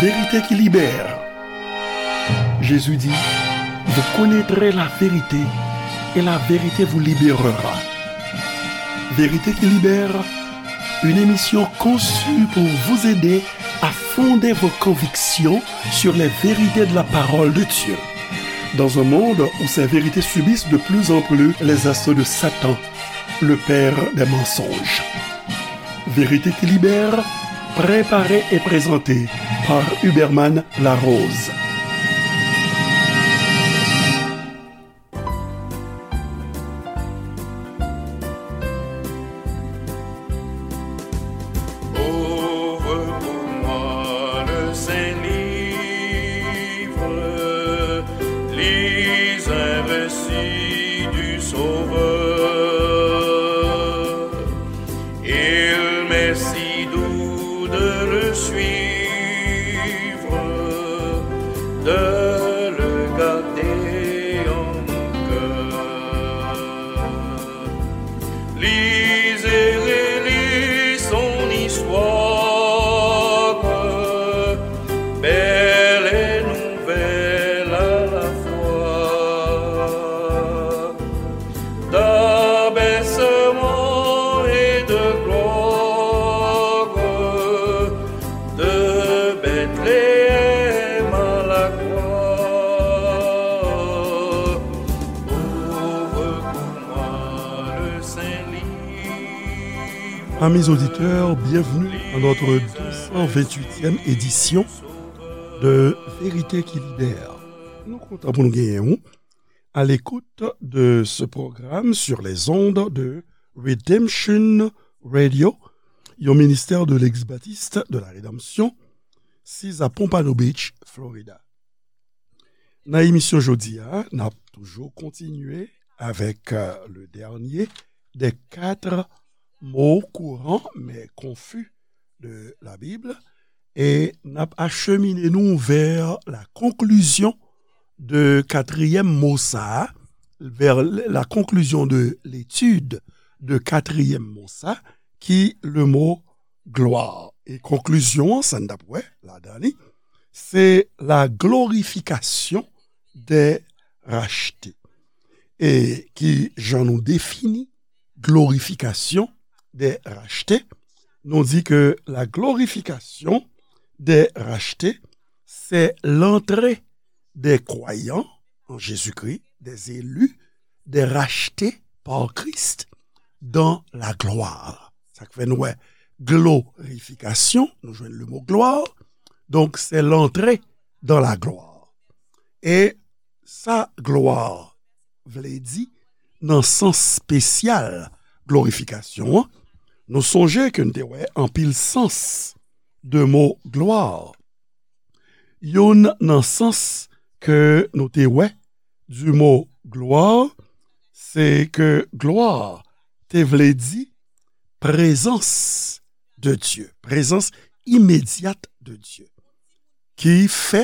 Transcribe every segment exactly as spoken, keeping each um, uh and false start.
Vérité qui libère. Jésus dit, vous connaîtrez la vérité et la vérité vous libérera. Vérité qui libère, une émission conçue pour vous aider à fonder vos convictions sur les vérités de la parole de Dieu. Dans un monde où ces vérités subissent de plus en plus les assauts de Satan, le père des mensonges. Vérité qui libère, préparée et présentée par Huberman Larose. Ouvre pour moi le saint livre, lis un récit du Sauveur. Il m'est si doux de le suivre, de le garder en mon cœur. Lis et relis son histoire, belle et nouvelle à la fois. D'abaissement et de gloire, de Bethléem à la croix, ouvre pour moi le saint livre. Amis auditeurs, bienvenue à notre deux cent vingt-huitième édition de Vérité qui libère. Nou kontan pou nou genyen ou à l'écoute de ce programme sur les ondes de Redemption Radio, yon ministère de l'Église baptiste de la Rédemption, sis a Pompano Beach, Florida. Nan emisyon jodi a, n ap toujou kontinye avèk, euh, le dernier des quatre mots courants mais confus de la Bible, e n ap achemine nou vers la conclusion de katriyèm mo sa a, vers la conclusion de l'étude de katriyèm mo sa, ki le mo glwa. E konklizyon an, sa n t ap wè ladan li, se la glorification des rachetés. E ki jan nou defini glorification des rachetés? Nou di ke la glorification des rachetés, c'est l'entrée des croyants en Jésus-Christ, des élus, des rachetés par Christ dans la gloire. Sa k fè nou wè glorification, nou jwenn le mot gloire, donc c'est l'entrée dans la gloire. E sa glwa vle di nan sans espesyal glorifikasyon an, nou sonje ke n te wè anpil sans de mo glwa. Youn nan sans ke nou te wè du mot gloire, se ke glwa te vle di prezans de Dye, prezans imedyat de Dye, ki fè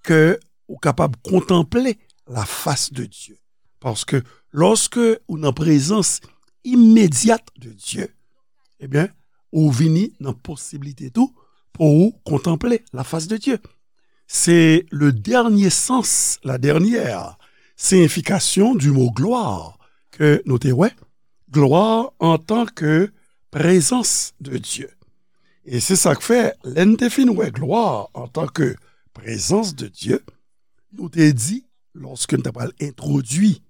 ke ou kapab kontanple la fas de Dye. Paske lòske ou nan prezans imedyat de Dye, ebyen, ou vini nan posiblite tou pou ou kontanple la fas de Dye. Se le dènye sans, la dènyè siyifikasyon du mo glwa ke nou te wè. Glwa antanke prezans de Dye. E se sa k fè, lè n te fin wè glwa antanke prezans de Dye, nou te di, lòske n ta pral entwodui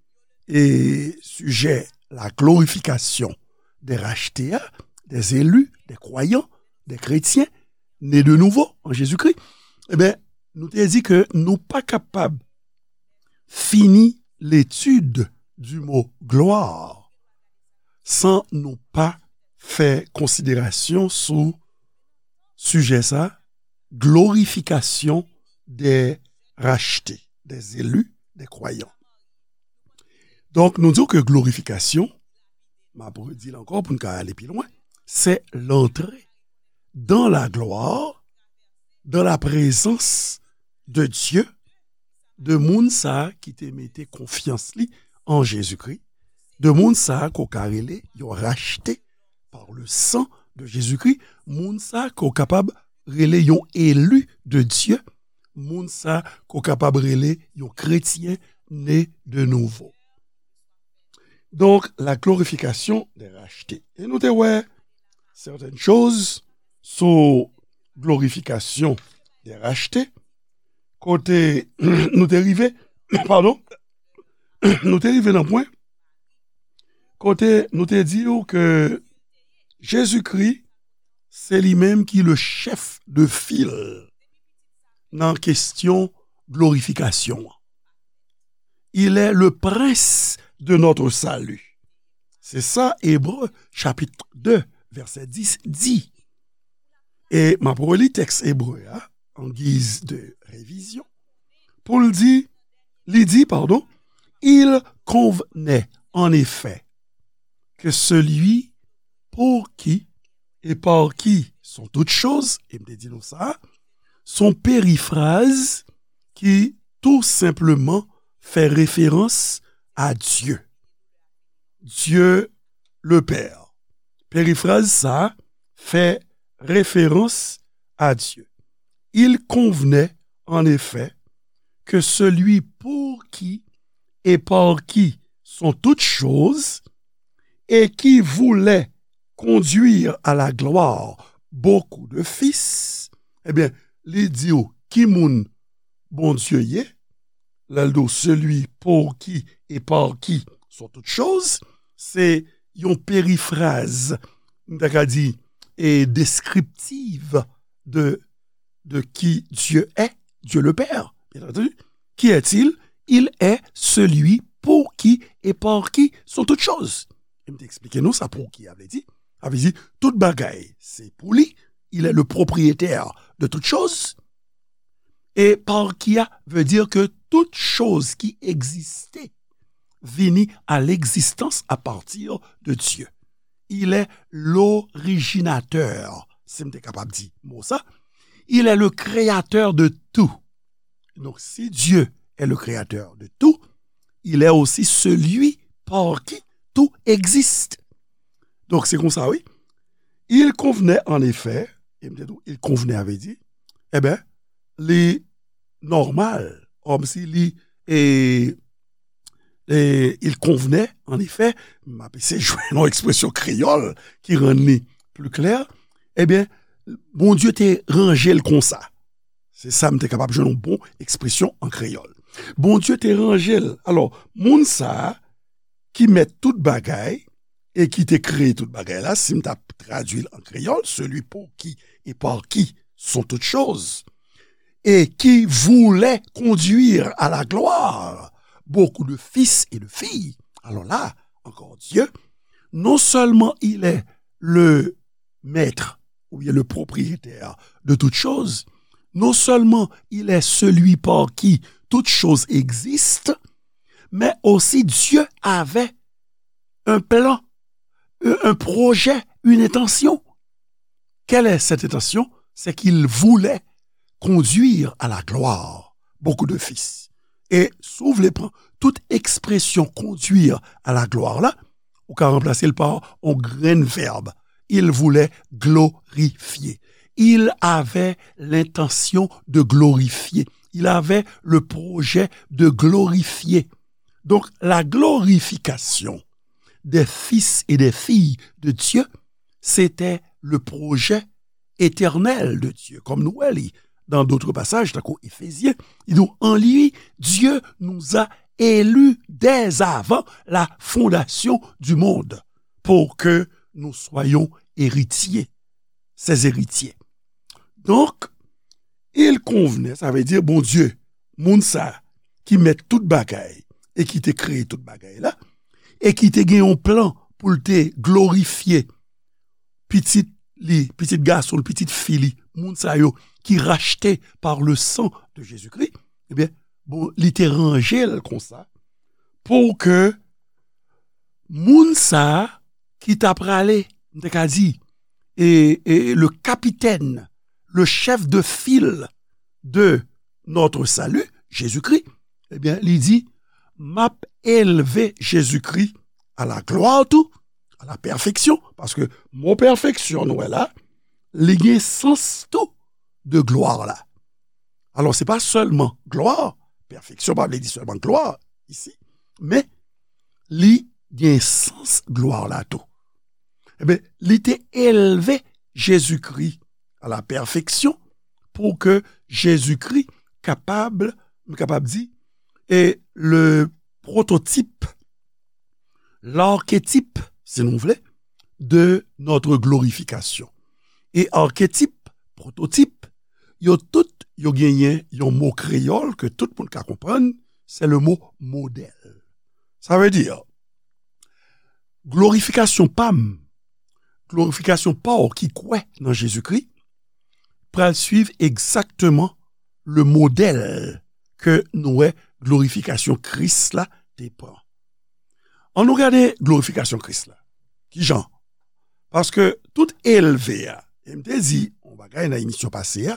e sijè la glorification des rachetés a, des élus, des croyants, des chrétiens nés de nouveau en Jésus-Christ, ebyen, nou te di ke nou pa kapab fini l'étude du mot gloire san nou pa fè konsiderasyon sou sijè sa, glorification des rachetés, des élus, des croyants. Donk, nou di w ke glorifikasyon, m ap redi l ankò pou n ka ale pi lwen, c'est l'entrée dans la gloire, dans la présence de Dieu, de moun sa a ki te mete konfyans li an Jezikri, de moun sa a ke w ka rele yon rachte par le sang de Jésus-Christ, moun sa a ke w kapab rele yon eli de Dye, moun sa ke w kapab rele yon kretyen ne de nouvo. Donk, la glorification des rachetés. E nou te wè certaines choses sou glorification des rachetés, kote nou te rive, padon, nou te rive nan pwen kote nou te di w ke Jezikri, se li menm ki le chef de file nan kesyon glorifikasyon an. Il est le prince de notre salut. C'est ça, Hébreux chapitre deux, verset dix dit. E m ap reli tèks ebre a, en guise de révision, pou l di, li di, pardon, il convenait en effet que celui pour qui et par qui sont toutes choses, e m te di nou sa, son périphrase qui tout simplement fait référence à Dieu. Dieu le Père. Périphrase sa fè référence à Dieu. Il convenait en effet que celui pour qui et par qui sont toutes choses et qui voulait conduire à la gloire beaucoup de fils, ebyen, li di w ki moun Bondye ye, lè l di w celui pour qui et par qui sont toutes choses, se yon perifraz, m ta ka di, e deskriptiv de, de qui Dieu est, Dieu le Père, bien entendu. Qui est-il? Il est celui pour qui et par qui sont toutes choses. E m te eksplike nou sa pour qui a vle di. A vle di, tout bagay, se pou li. Il est le propriétaire de toutes choses. E par qui a veut dire que toute chose qui existait vini à l'existence à partir de Dieu. Il est l'originateur, si m te kapab di mo sa. Il est le créateur de tout. Donc, si Dieu est le créateur de tout, il est aussi celui par qui tout existe. Donk, se konsa, wi. Il convenait en effet, e m te di w, il convenait a vle di, e ben, li nòmal, kòmsi li, e, e, il convenait, en effet, m ap eseye jwenn yon ekspresyon kreyòl ki rann li pli klè, e ben, Bondye te ranje l konsa. Se sa m te kapab jwenn yon bon ekspresyon an kreyòl. Bondye te ranje l. Alò, moun sa a ki mèt tout bagay e ki te kreye tout bagay la, si m t ap tradui l an kreyòl, celui pour qui et par qui sont toutes choses, et qui voulait conduire à la gloire beaucoup de fils et de filles. Alors là, encore Dieu, non seulement il est le maître ou bien le propriétaire de toutes choses, non seulement il est celui par qui toutes choses existent, mais aussi Dieu avait un plan, un projet, une intention. Quelle est cette intention? C'est qu'il voulait conduire à la gloire beaucoup de fils. E si w vle pran tout ekspresyon conduire à la gloire la, ou ka ranplase l pa yon grenn vèb. Il voulait glorifier. Il avait l'intention de glorifier. Il avait le projet de glorifier. Donc, la glorification des fils et des filles de Dieu, c'était le projet éternel de Dieu. Comme nous wè li dans d'autres passages, tankou Éphésiens, il dit, en lui, Dieu nous a élus dès avant la fondation du monde pour que nous soyons héritiers, ses héritiers. Donc, il convenait, sa vle di, Bondye, moun sa ki mèt tout bagay e ki te kreye tout bagay la, e ki te gen yon plan pou l te glorifye pitit li, pitit gason l, pitit fi li, moun sa yo ki rachte par le sang de Jésus-Christ, ebyen, bon, li te ranje l konsa pou ke moun sa a ki ta prale, m te ka di, e, e le capitaine, le chef de file de notre salut, Jésus-Christ, ebyen, li di, m ap elve Jezikri a la glwa tou, a la pèfeksyon, paske mo pèfeksyon nou wè la, li gen sans tou de glwa la. Alò, se pa sèlman glwa, pèfeksyon pa vle di sèlman glwa isi, men li gen sans glwa la tou. Ebyen, li te elve Jezikri a la pèfeksyon pou ke Jezikri kapab, m kapab di, e le prototip, l'archétype, si nou vle, de notre glorification. E arketip, pwototip, yo tout, yo genyen yon mo kreyòl ke tout moun ka konprann, se le mo modèl. Sa vle di, glorifikasyon pa m, glorifikasyon pa w ki kwè nan Jezikri, pral swiv egzakteman le modèl ke nou wè glorifikasyon Kris la te pran. Ann nou gade glorifikasyon Kris la. Kijan? Paske tout elve a, e m te di yon bagay nan emisyon pase a,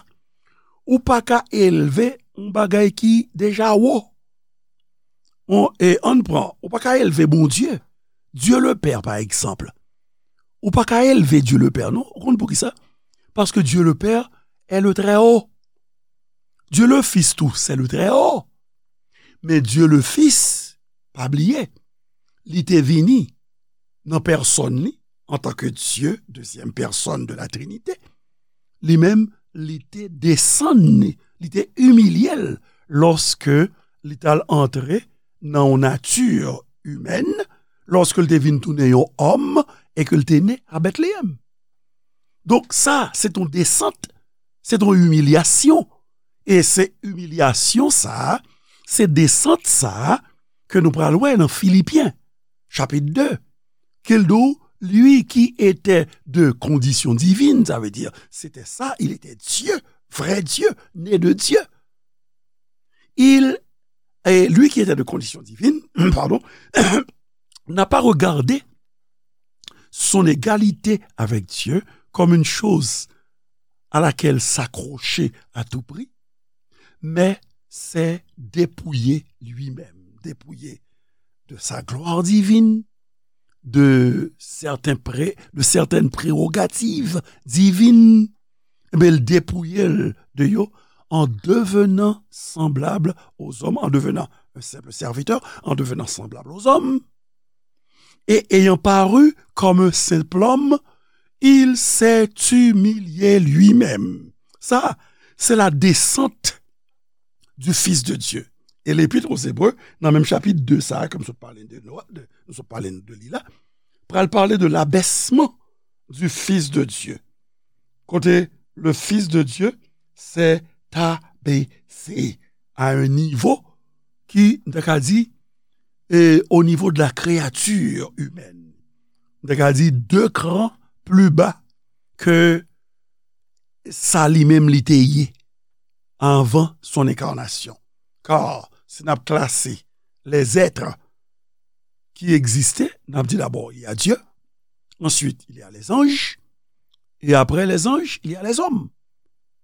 ou pa ka elve yon bagay ki deja wo. On, e ann pran, ou pa ka elve Bondye, Dieu le Père, pa egzanp. Ou pa ka elve Dieu le Père, non. Ou konn poukisa? Paske Dieu le Père est le Très Haut. Dieu le Fils tou, c'est le Très Haut. Men Dieu le Fils, pa bliye, li te vini nan pèsòn li, antanke Dye, dezyèm pèsòn de la Trinite. Li menm, li te desann li, li te imilye l lòske li t al antre nan yon nati imèn, lòske l te vin tounen yon òm e ke l te ne a Betleyèm. Donk sa, se t on desant, se t on imilyasyon. E se imilyasyon sa a, se desant sa a ke nou pral wè nan Filipyen, chapit de, ke l di w, lui qui était de condition divine, ça veut dire, c'était ça, il était Dieu, vrai Dieu, né de Dieu. Il, et lui qui était de condition divine, pardon, n'a pas regardé son égalité avec Dieu comme une chose à laquelle s'accrocher à tout prix, mais s'est dépouillé lui-même, dépouillé de sa gloire divine, de certains pré-, de certaines prérogatives divines, men l depouye l de yo en devenant semblable aux hommes, en devenant un simple serviteur, en devenant semblable aux hommes, et ayant paru comme un simple homme, il s'est humilié lui-même. Sa, se la descente du Fils de Dieu. E Lepit aux Hébreux, nan menm chapit de sa, ke m sot pale de, de, nou sot pale de li la, pral pale de l'abaissement du Fils de Dieu. Kote le Fils de Dieu s'est abaissé à un niveau ki, m ta ka di, e, au niveau de la créature humaine. M ta ka di de cran plus bas ke sa li menm li te ye avant son incarnation. Car si n ap klase les êtres qui existaient, n ap di d'abord, il y a Dieu, ensuite, il y a les anges, et après les anges, il y a les hommes.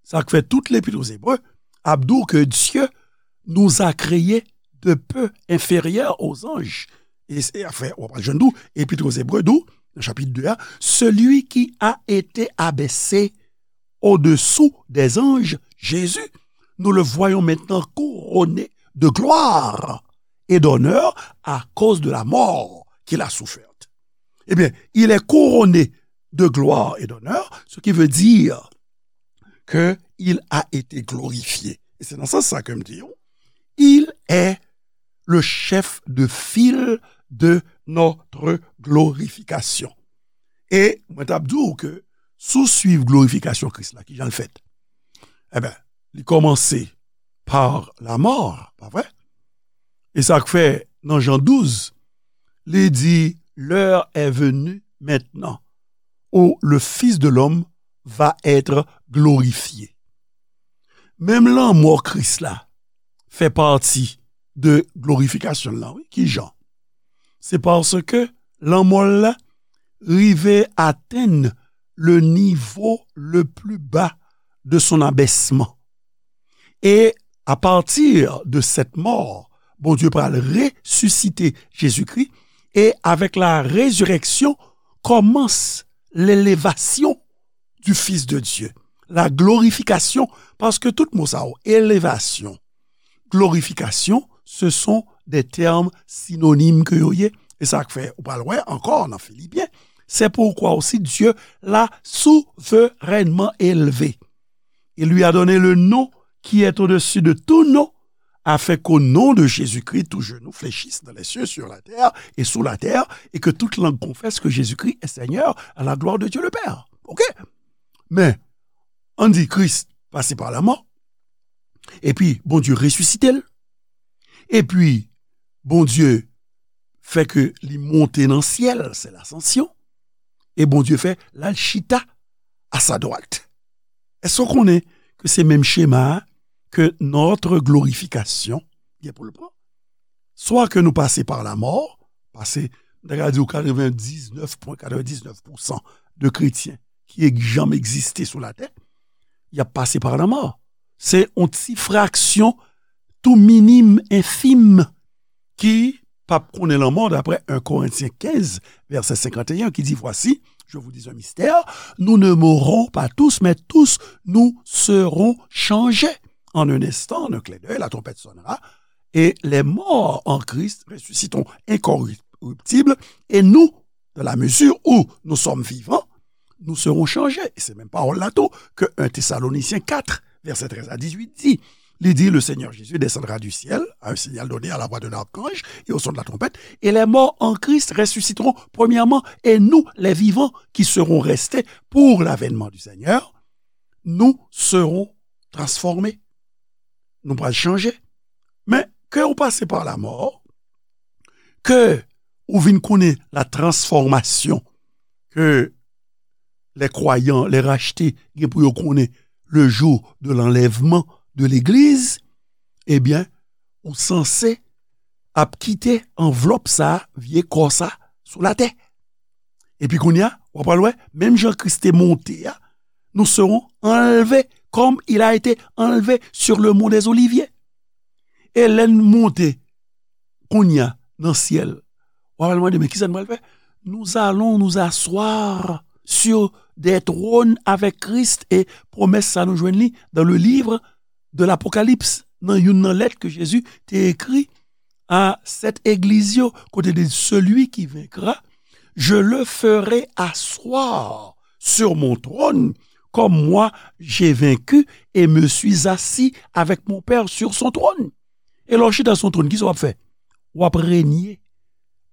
Sa k fè tout Lepit aux Hébreux ap di w ke Dieu nous a créés de peu inférieurs aux anges. E se, anfen, w ap jwenn tou, Epit aux Hébreux di w, nan chapit de a, celui qui a été abaissé au-dessous des anges, Jésus, nous le voyons maintenant couronné de gloire et d'honneur à cause de la mort qu'il a soufferte. Eh bien, il est couronné de gloire et d'honneur, ce qui veut dire que il a été glorifié. E se nan sans sa ke m di w, il est le chef de file de notre glorification. E mwen t ap di w ke si w swiv glorifikasyon Kris la, kijan l fèt? Eben, li kòmanse pa lamò, pa vre? E sa k fè nan Jan douz, li di, l'heure est venue maintenant où le Fils de l'homme va être glorifié. Menm lanmò Kris la fè pati de glorifikasyon l lan, wi. Kijan? Se paske lanmò l la rive atenn le niveau le plus bas de son abaissement. Et à partir de cette mort, Bondye pral resisite Jezikri, e avèk la rezirèksyon kòmans lelevasyon du Fils de Dieu. la glorification, paske tout mo sa yo, elevasyon, glorification, ce sont des termes synonymes ke yo ye, e sa k fè ou pral wè ankò nan Filipyen, c'est pourquoi aussi Dieu l'a souverainement élevé. Il lui a donné le nom qui est au-dessus de tout nom, afin qu'au nom de Jésus-Christ, tout genou fléchisse dans les cieux, sur la terre et sous la terre, et que toute langue confesse que Jésus-Christ est Seigneur, à la gloire de Dieu le Père. OK? Men, ann di Kris pase pa lanmò, epi Bondye resisite l, epi Bondye fè ke li monte nan syèl, c'est l'ascension, e Bondye fè l al chita à sa droite. Èske w konnen ke se menm chema a ke notre glorification gen pou l pran? Swa ke nou pase pa lanmò, pase, m ta ka di w katrevendiznèf pwen katrevendiznèf pousan de kretyen ki e- janm egziste sou latè, y ap pase pa lanmò. Se yon ti fraksyon tou minim, enfim, ki p ap konnen lanmò, daprè en Korentyen kenz, vèsè senkanteyen, ki di, Voici, je vous dis un mystère, nous ne mourrons pas tous, mais tous nous serons changés. En un instant, en un clin d'œil, la trompette sonnera, et les morts en Christ ressusciteront incorruptibles, et nous, dans la mesure où nous sommes vivants, nous serons changés. E se menm pawòl la tou ke en Tesalonisyen kat, vèsè trèz a dizuit di. Li di, Le Seigneur Jésus descendra du ciel à un signal donné à la voix d'un archange et au son de la trompette, et les morts en Christ ressusciteront premièrement, et nous, les vivants qui serons restés pour l'avènement du Seigneur, nous serons transformés. Nou pral chanje. Men, ke ou pase pa lanmò, ke ou vin konnen la transformasyon ke les croyants, les rachetés, gen pou yo konnen le jour de l'enlèvement de l'église, ebyen, ou sanse ap kite anvlòp sa, vye kò sa, sou latè. Epi kounye a, w ap al wè, menm jan Kris te monte a, nous serons enlevés comme il a été enlevé sur le mont des Oliviers. E lè n monte, kounye a, nan syèl, w ap al mande, men kisa n pral fè? Nous allons nous asseoir sur des trônes avec Christ, e pwomès sa nou jwenn li dans le livre de l'Apocalypse, nan youn nan lèt ke Jezi te ekri a sèt egliz yo, kote de celui qui vaincra, je le ferai asseoir sur mon trône, comme moi j'ai vaincu et me suis assis avec mon Père sur son trône. E lè w chita sou yon twòn, kisa w ap fè? W ap renye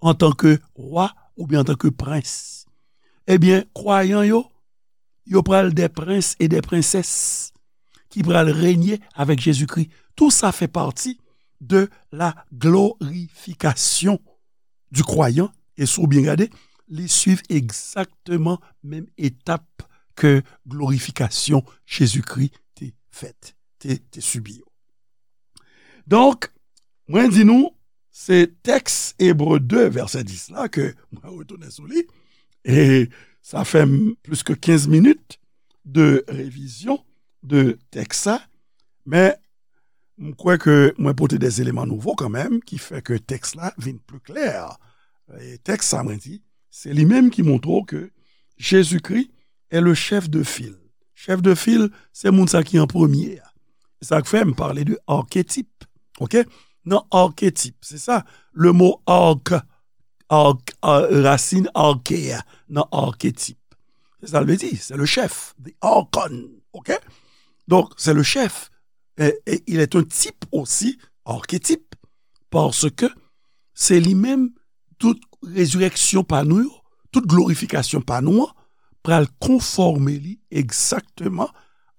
antanke wa oubyen antanke prens. Ebyen, kwayan yo, yo pral des princes et des princesses ki pral renye avèk Jezikri. Tout sa fè pati de la glorification du croyant. E si w byen gade, li swiv egzakteman menm etap ke glorifikasyon Jezikri te fèt, te, te sibi yo. Donk, mwen di nou, se tèks Ebre de, vèsè dis la, ke mwen retounen sou li. E sa fè m plis ke kenz minit de revizyon de tèks sa. Men, m kwè ke mwen pote des éléments nouveaux kanmenm, ki fè ke tèks la vin pli klè. E tèks sa, mwen di, se li menm ki montre w ke Jezikri est le chef de file. Chèf de fil, se moun sa ki an premye a. Se sa k fè m pale de arketip. Oke? Nan arketip, se sa, le mo ark, ark, a, rasin arke a, nan arketip. Se sa l vle di, se le chèf, the archon. Oke? Donk, se le chèf. E, e il est un type aussi, arketip, paske se li menm, tout rezirèksyon pa nou yo, tout glorifikasyon pa nou an, pral konfòme li egzakteman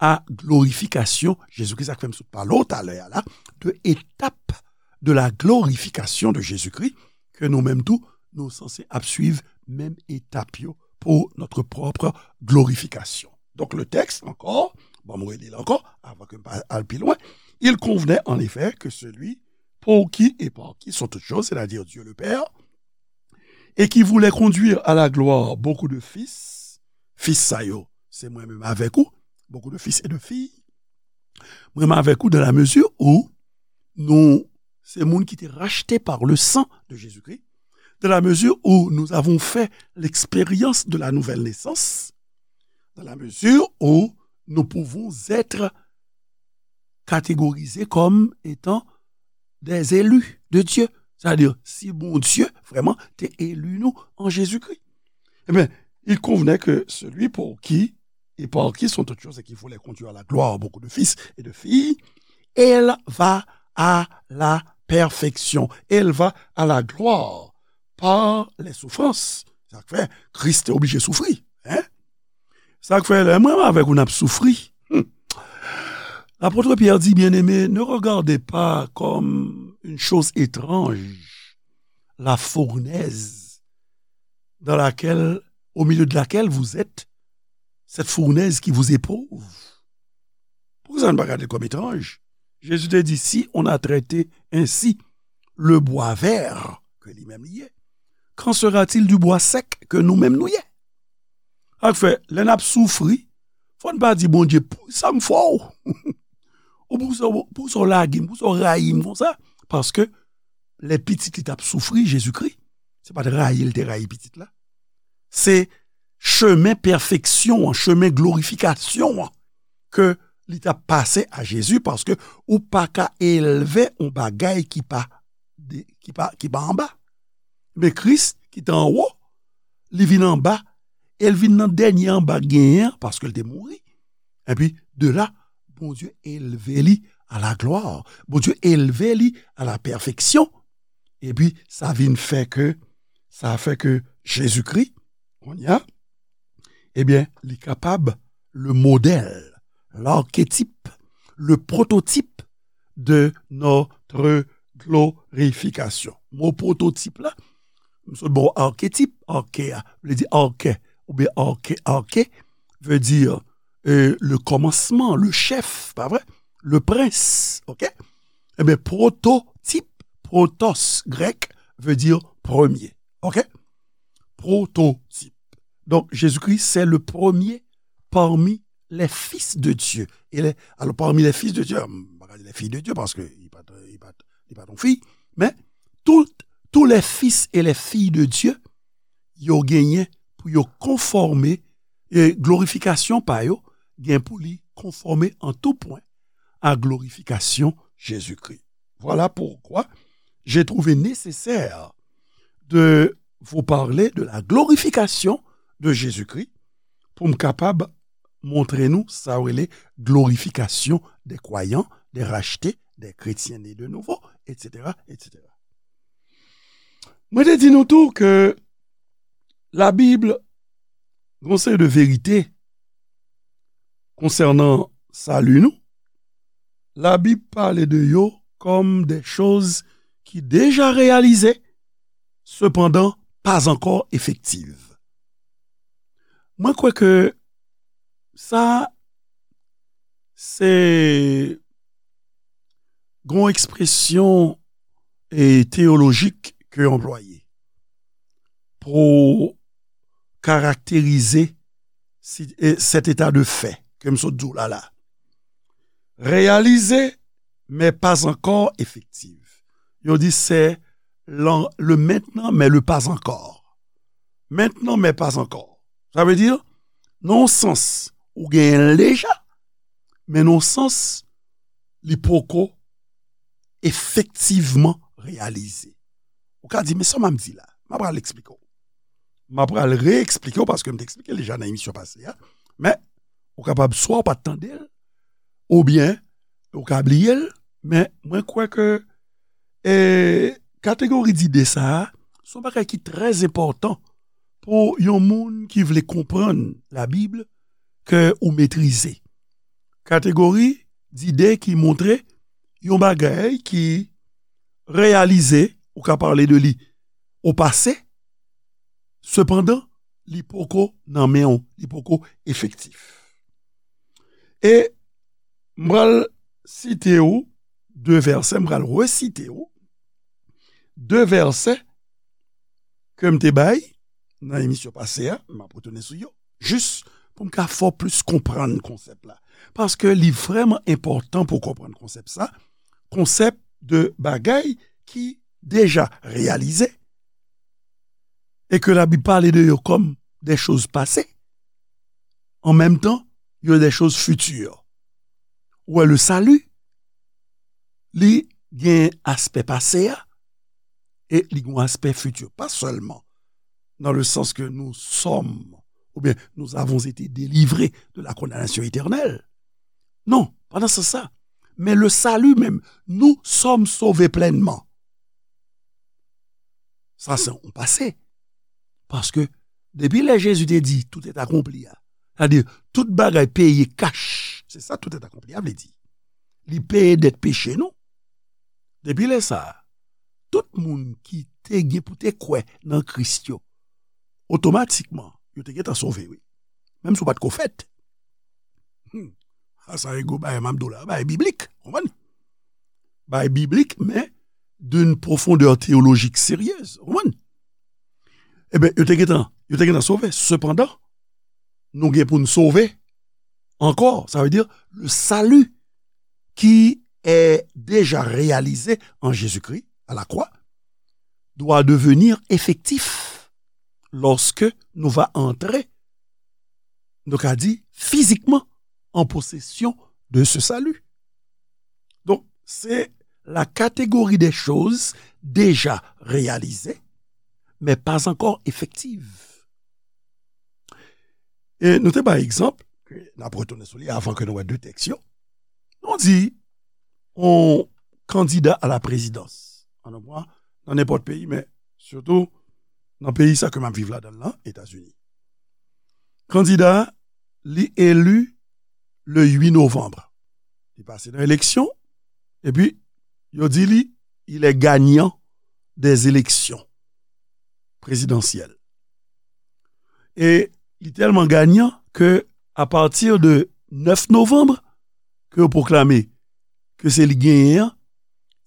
a glorifikasyon Jezikri. Sa k fè m sot pale w talè a la, de etap de la glorification de Jésus-Christ, ke nou menm tou, nou sanse ap swiv menm etap yo pour notre propre glorification. Donk, le texte, encore, bon, mwen reli l ankò, avan ke m pa al pi lwen. Il convenait en effet que celui pour qui et par qui sont toutes choses, c'est-à-dire Dieu le Père, et qui voulait conduire à la gloire beaucoup de fils, fis sa yo, se mwen menm avèk ou, beaucoup de fils et de filles, mwen menm avèk ou, dans la mesure où nous, se moun ki te racheté par le sang de Jésus-Christ, dans la mesure où nous avons fait l'expérience de la nouvelle naissance, dans la mesure où nous pouvons être catégorisés comme étant des élus de Dieu. C'est-à-dire, si Bondye vrèman te eli nou an Jezikri. Ebyen, il convenait que celui pour qui et par qui sont toutes choses et qui voulait conduire à la gloire beaucoup de fils et de filles, elle va à la perfection, elle va à la gloire par les souffrances. Sa k fè Kris te oblije soufri. Hein? Sa k fè lè mwen avèk ou n ap soufri. Hmm. L'apôtre Pierre dit, bien-aimés, ne regardez pas comme une chose étrange la fournaise dans laquelle, au milieu de laquelle vous êtes, cette fournaise qui vous éprouve. Pourquoi ça ne pas regarder comme étrange? Jésus te dit, si on a traité ainsi le bois vert que lui-même il est, qu'en sera-t-il du bois sec que nous-mêmes nous y est? Sa k fè, lè n ap soufri, fò n pa di Bondye, pou sa m fè w. Ou pou sa, pou sa w lage m, pou sa w rayi m konsa. Paske lè pitit li t ap soufri, Jezikri, se pa t rayi l te rayi pitit la. Se chemen pèfeksyon an, chemen glorifikasyon an ke li t ap pase a Jezi, paske ou pa ka elve yon bagay ki pa, de, ki pa, ki pa anba. Men Kris ki te anwo, li vin anba, e l vin nan dènye anba genyen an, paske l te mouri. Epi, de la, Bondye elve li a la glwa. Bondye elve li a la pèfeksyon. Epi, sa vin fè ke, sa fè ke Jezikri, kounye a, ebyen, li kapab le modèle, l'archétype, le prototype de notre glorification. Mo pwototip la, m sot ba w arketip, arke a, vle di arke, oubyen arke, arke, vle di, euh, le kòmansman, le chèf, pa vre? Le prince, ok? Ebyen, pwototip, pwotos, grèk, vle di premye, ok? Pwototip. Donk, Jezikri, se le premye parmi les fils de Dieu. E lè, alò, parmi les fils de Dieu, m pa ka di les filles de Dieu, paske li pa t, li pa t, li pa t yon fi, men tout, tous les fils et les filles de Dieu, yo genyen pou yo konfòme, e glorifikasyon pa yo gen pou li konfòme an tou pwen a glorifikasyon Jezikri. Voilà pourquoi j'ai trouvé nécessaire de vous parler de la glorification de Jésus-Christ pou m kapab montre nou sa yo rele glorifikasyon des croyants, des rachetés, des chrétiens nés de nouveau, et cetera, et cetera. Mwen te di nou tou ke Labib gen yon seri de verite konsènan sali nou. Labib pale de yo kòm de choz ki deja reyalize, sepandan pa ankò efektiv. Mwen kwè ke sa se yon ekspresyon, e, teyolojik ke yo anplwaye pou karakterize si, e, cet état de fait ke m sot di w la la. Réalisé, mais pas encore effective. Yo di se le maintenant, mais le pas encore. Maintenant, mais pas encore. Sa vle di, nan yon sans, ou genyen l deja, men nan yon sans, li poko efektivman reyalize. Ou ka di, men sa m ap di la, m ap pral eksplike w. M ap pral re-eksplike w paske m te eksplike l deja nan emisyon pase a. Men, ou kapab swa w pa t tande l, oubyen ou ka bliye l, men mwen kwè ke, e, kategori dide sa a, se yon bagay ki trè enpòtan pou yon moun ki vle konprann Labib ke ou metrize. Kategori dide ki montre yon bagay ki reyalize, ou ka pale de li o pase, sepandan, li poko nan men w, li poko efektif. E m pral site w de vèsè, m pral resite w de vèsè ke m te bay nan emisyon pase a, m ap retounen sou yo, jis pou m ka fè w plis konprann konsèp la. Paske li vrèman enpòtan pou w konprann konsèp sa, konsèp de bagay ki deja reyalize, e ke Labib pale de yo kòm de choz pase, an menm tan, il y a des choses futures. Ou wè, le salut, li gen aspè pase a, e li gen aspè futur. Pas seulement dans le sens que nous sommes, ou bien nous avons été délivrés de la condamnation éternelle. Non, pas dans ce sens-là. Mais le salut même, nous sommes sauvés pleinement. Sa se yon pase. Paske depi lè Jezi te di, tout est accompli a, sa di, tout bagay peye kach. Se sa tout est accompli a vle di. Li peye dèt peche nou. Depi lè sa a, tout moun ki te gen pou te kwè nan Kris yo, otomatikman, yo te gentan sove, wi. Menm si w pa t ko fèt. Hmm. A sa e gwo bagay m ap di w la, bagay biblik, konprann? Bagay biblik, men d'une profondeur théologique sérieuse, konprann? Ebyen, yo te gentan, yo te gentan sove. Sepandan, nou gen pou n sove ankò. Sa vle di, le salut qui est déjà réalisé en Jésus-Christ à la croix doit devenir effectif lorsque nou va entrer, nou ka di, fizikman an posesyon de ce salut. Donk, se la catégorie des choses déjà réalisées, mais pas encore effectives. E nou te bay egzanp, ke n ap retounen sou li avan ke nou wè de tèks yo. Nou di, yon kandida a la prezidans, an nou pran nan nenpòt peyi, men sitou nan peyi sa ke m ap viv ladan l lan, Etazini. Kandida a, li eli le uit novanm. Li pase nan eleksyon, epi yo di li, il est gagnant des élections présidentielles. E li tèlman ganyan ke, à partir de nèf novanm, ke yo pwoklame ke se li genyen an,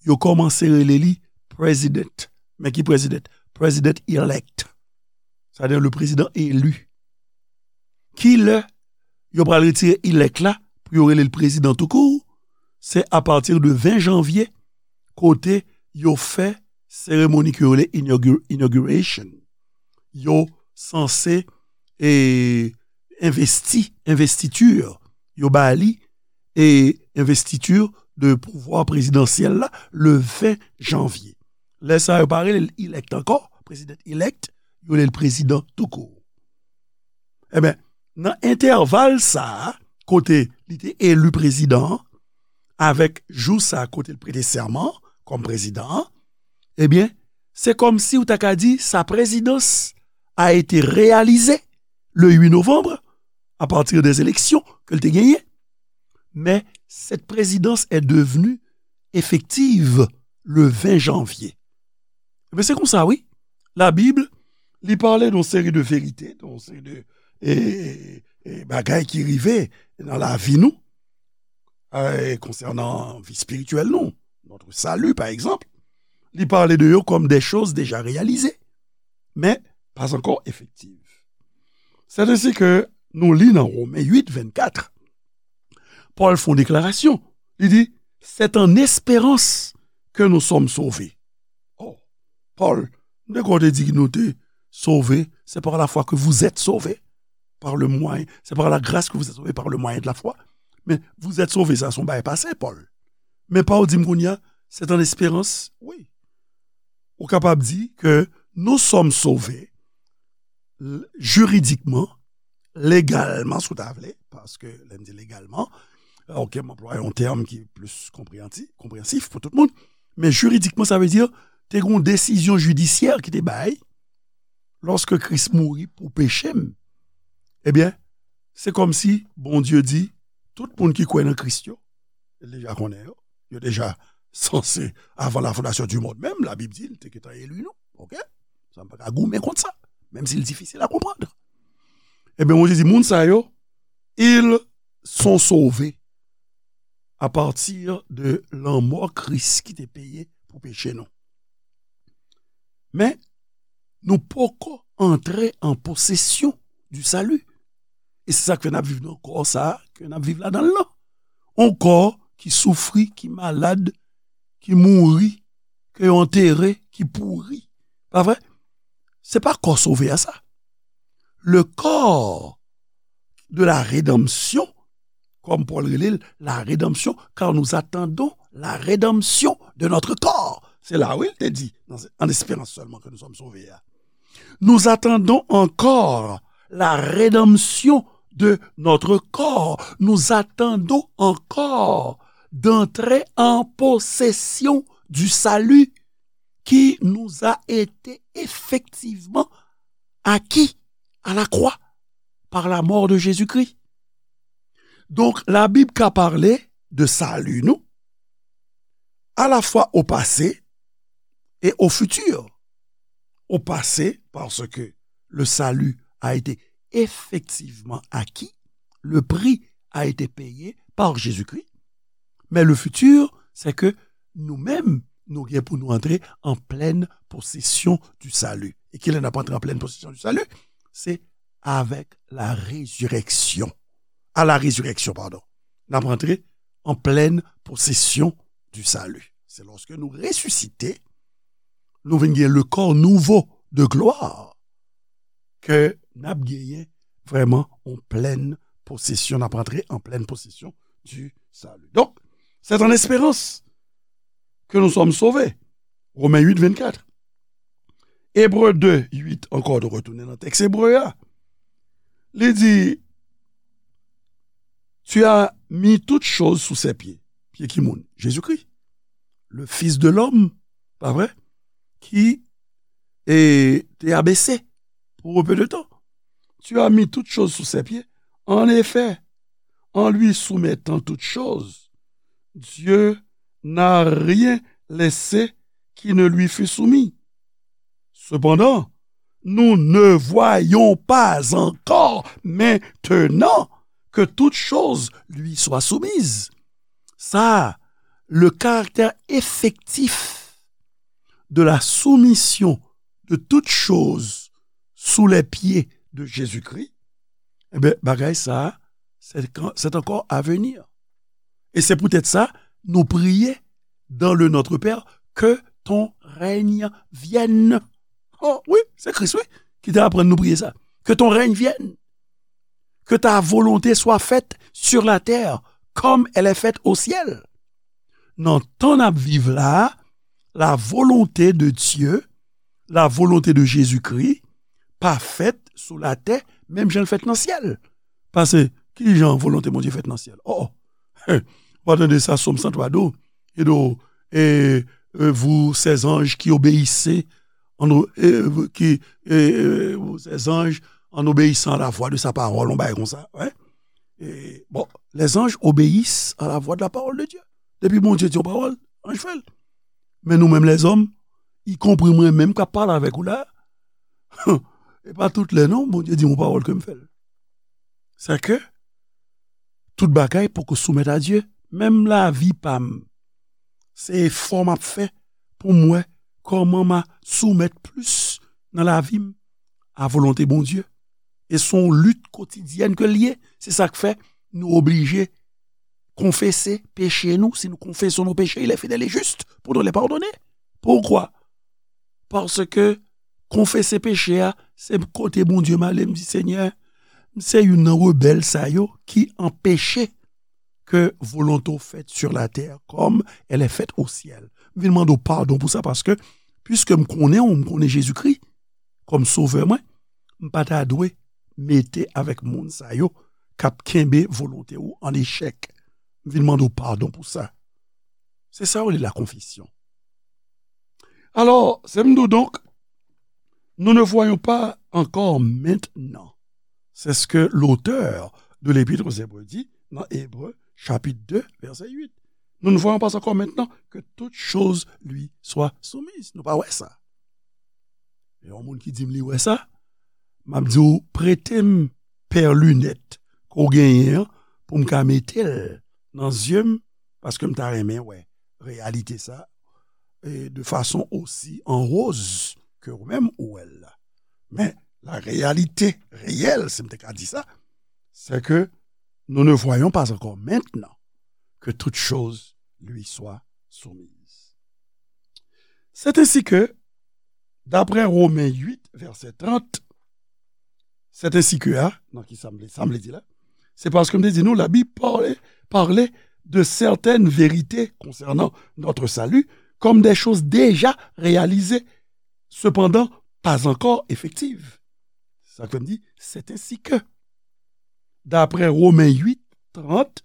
yo kòmanse rele li president. Men ki president? President elect. Sa vle di le président élu. Kilè yo pral retire elect la pou yo rele l prezidan toukou? Se à partir de ven janvye, kote yo fè seremoni ke yo rele inaugu-, inauguration. Yo sanse, e, envesti, investiture. Yo ba li, e, investiture de pouvwa prezidansyèl la le ven janvye. Lè sa a, yo pa rele l elect ankò, president elect, yo rele l prezidan toukou. Ebyen, nan entèval sa a, kote li te eli prezidan an, avèk jou sa a kote l prete sèman an kòm prezidan an, ebyen, se kòmsi ou ta ka di sa présidence a été réalisée le huit novembre, à partir des élections ke l te genyen. Mais cette présidence est devenue effective le ven janvye. Ebyen, se konsa, wi. Labib, li pale de yon seri de verite, de yon seri de, e, e, bagay ki rive nan lavi nou, e, konsènan vi espirityèl nou, notre salut, par exemple. Li pale de yo comme des choses déjà réalisées, mais pas encore effectives. C'est ainsi que nou li nan Women uit, vennkat, Pòl fè yon deklarasyon. Li di, c'est en espérance que nous sommes sauvés. Oh, Pòl, m te kwè w te di nou te sove, c'est par la foi que vous êtes sauvés, par le moyen, c'est par la grâce que vous êtes sauvés par le moyen de la foi. Men, vous êtes sauvés, sa se yon bagay pase, Pòl. Men pa w di m kounye a, c'est en espérance, wi. Ou kapab di ke nous sommes sauvés, l-, jiridikman, legalman, si w ta vle, paske lè m di legalman, ok, m anplwaye yon tèm ki plis konpreyanti-, konpreyensif pou tout moun, men jiridikman, sa vle di, te gen yon desizyon jidisyè ki te bay, lòske Kris mouri pou peche m, ebyen, se kòmsi Bondye di, tout moun ki kwè nan Kris yo, li deja konnen yo, yo deja sanse, avant la fondation du monde menm, Labib di, li te gentan eli nou, ok? Sa m pa ka goumen kont sa, menm si l difisil a konprann. Ebyen, Bondye di, moun sa yo, ils sont sauvés à partir de lanmò Kris ki te peye pou peche nou. Men, nou poko antre an posesyon du salut. E se sa k fè n ap viv nan kò sa a ke n ap viv ladan l lan. Yon kò ki soufri, ki malad, ki mouri, ke yo antere, ki pouri. Pa vre? Se pa kò sove a sa. Le corps de la rédemption kòm Pòl rele l, la rédemption, car nous attendons la rédemption de notre corps. Se la, wi, l te di, nan, an esperans sèlman ke nou sòm sove a. Nous attendons encore la rédemption de notre corps. Nous attendons encore d'entrer en possession du salut qui nous a été effectivement acquis à la croix par la mort de Jésus-Christ. Donk, Labib ka pale de sali nou, à la fois au passé et au futur. Au passé, parce que le salut a été effectivement acquis, le prix a été payé par Jésus-Christ. Mais le futur, c'est que nous-mêmes, nou gen pou nou antre en pleine possession du salut. E kilè n ap antre en pleine possession du salut? C'est avec la résurrection. À la résurrection, pardon. N ap antre en pleine possession du salut. Se lòske nou resisite, nou vin gen le corps nouveau de gloire, ke n ap genyen vrèman en pleine possession, n ap antre en pleine possession du salut. Donc, c'est en espérance que nous sommes sauvés. Romains huit, vingt-quatre. Ebre de, uit ankò, nou retounen nan tèks ebre a. Li di, tu as mis toutes choses sous ses pieds. Pye ki moun? Jezikri. Le Fils de l'homme, pa vre? Ki e, te abese pour un peu de temps. Tu as mis toutes choses sous ses pieds. En effet, en lui soumettant toutes choses, Dieu n'a rien laissé qui ne lui fût soumis. Cependant, nous ne voyons pas encore maintenant que toutes choses lui soient soumises. Ça, le caractère effectif de la soumission de toutes choses sous les pieds de Jésus-Christ, eh bien, bagay sa, c'est, c'est encore à venir. Et c'est peut-être ça, nous prier dans le Notre Père, que ton règne vienne. Oh, wi, se Kris, wi, ki te aprann nou priye sa. Que ton règne vienne. Que ta volonté soit faite sur la terre comme elle est faite au ciel. Nan tan n ap viv la, la volonté de Dieu, la volonté de Jésus-Christ, pa fèt sou latè, menm jan l fèt nan syèl. Paske, ki jan volonté Bondye fèt nan syèl? Oh, oh. Ou pa tande sa, Sòm san twa di w, e di w, e, e, vous, ces anges qui obéissez, en o-, e, qui, e, e, vous, ces anges, en obéissant à la voix de sa parole, on bagay konsa, wi. E, bon, les anges obéissent à la voix de la parole de Dieu. Depi Bondye di yon pawòl, anj fè l. Men nou menm lèzòm, ikonpri mwen menm k ap pale avèk ou la, e pa tout lè non, Bondye di yon pawòl ke m fè l. Sa ke tout bagay poko soumèt a Dye. Menm lavi pa m, se efò m ap fè pou m wè kòman m a soumèt plis nan lavi m a volonte Bondye. E se yon lit kotidyèn ke l ye. Se sa k fè nou oblije konfese peche nou. Si nou konfesons nos péchés, il est fidèle et juste pour nous les pardonner. Pourquoi? Paske konfese peche a, se kote Bondye m ale, m di, Senyè, m se youn nan rebèl sa yo ki anpeche ke volonte w fèt sur la terre comme elle est faite au ciel. M vin mande w padon pou sa, paske, piske m konnen w, m konnen Jezikri kòm Sovè mwen, m pa ta dwe mete avèk moun sa yo k ap kenbe volonte w an echèk. M vin mande w padon pou sa. Se sa yo rele la confession. Alors, c'est nous donc, nous ne voyons pas encore maintenant. C'est ce que l'auteur de l'Épître aux Hébreux dit dans Hébreux chapitre deux, verset huit. Nous ne voyons pas encore maintenant que toutes choses lui soient soumises. Nou pa wè sa. E yon moun ki di m li wè sa, m ap di w, prete m pè linèt ke w genyen an pou m ka mete l nan zye m, paske m ta renmen wè reyalite sa, e de fason osi an woz ke ou menm ou wè l la. Men, la réalité réelle, si m te ka di sa, c'est que nous ne voyons pas encore maintenant que toutes choses lui soient soumises. C'est ainsi que, d'après Romains huit, verset trente, c'est ainsi que, a, nan ki sa m vle, sa m vle di la, C'est parce que m te di nou, la Bible parlait, parlait de certaines vérités concernant notre salut comme des choses déjà réalisées, cependant pas encore effectives. Sa k fè m di, c'est ainsi que. D'après Romains huit, trente,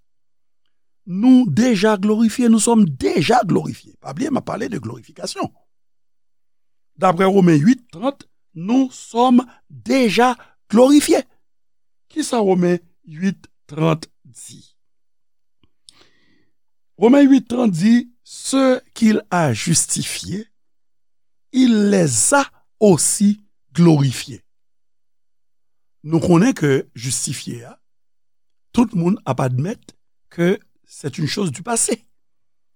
nous déjà glorifiés, nous sommes déjà glorifiés. Pa bliye, m ap pale de glorifikasyon. D'après Romains huit, trente, nous sommes déjà glorifiés. Kisa Romains huit, trente di? Romains huit, trente di, ceux qu'il a justifiés, il les a aussi glorifiés. Nou konnen ke jistifye a, tout moun ap admèt ke c'est une chose du passé,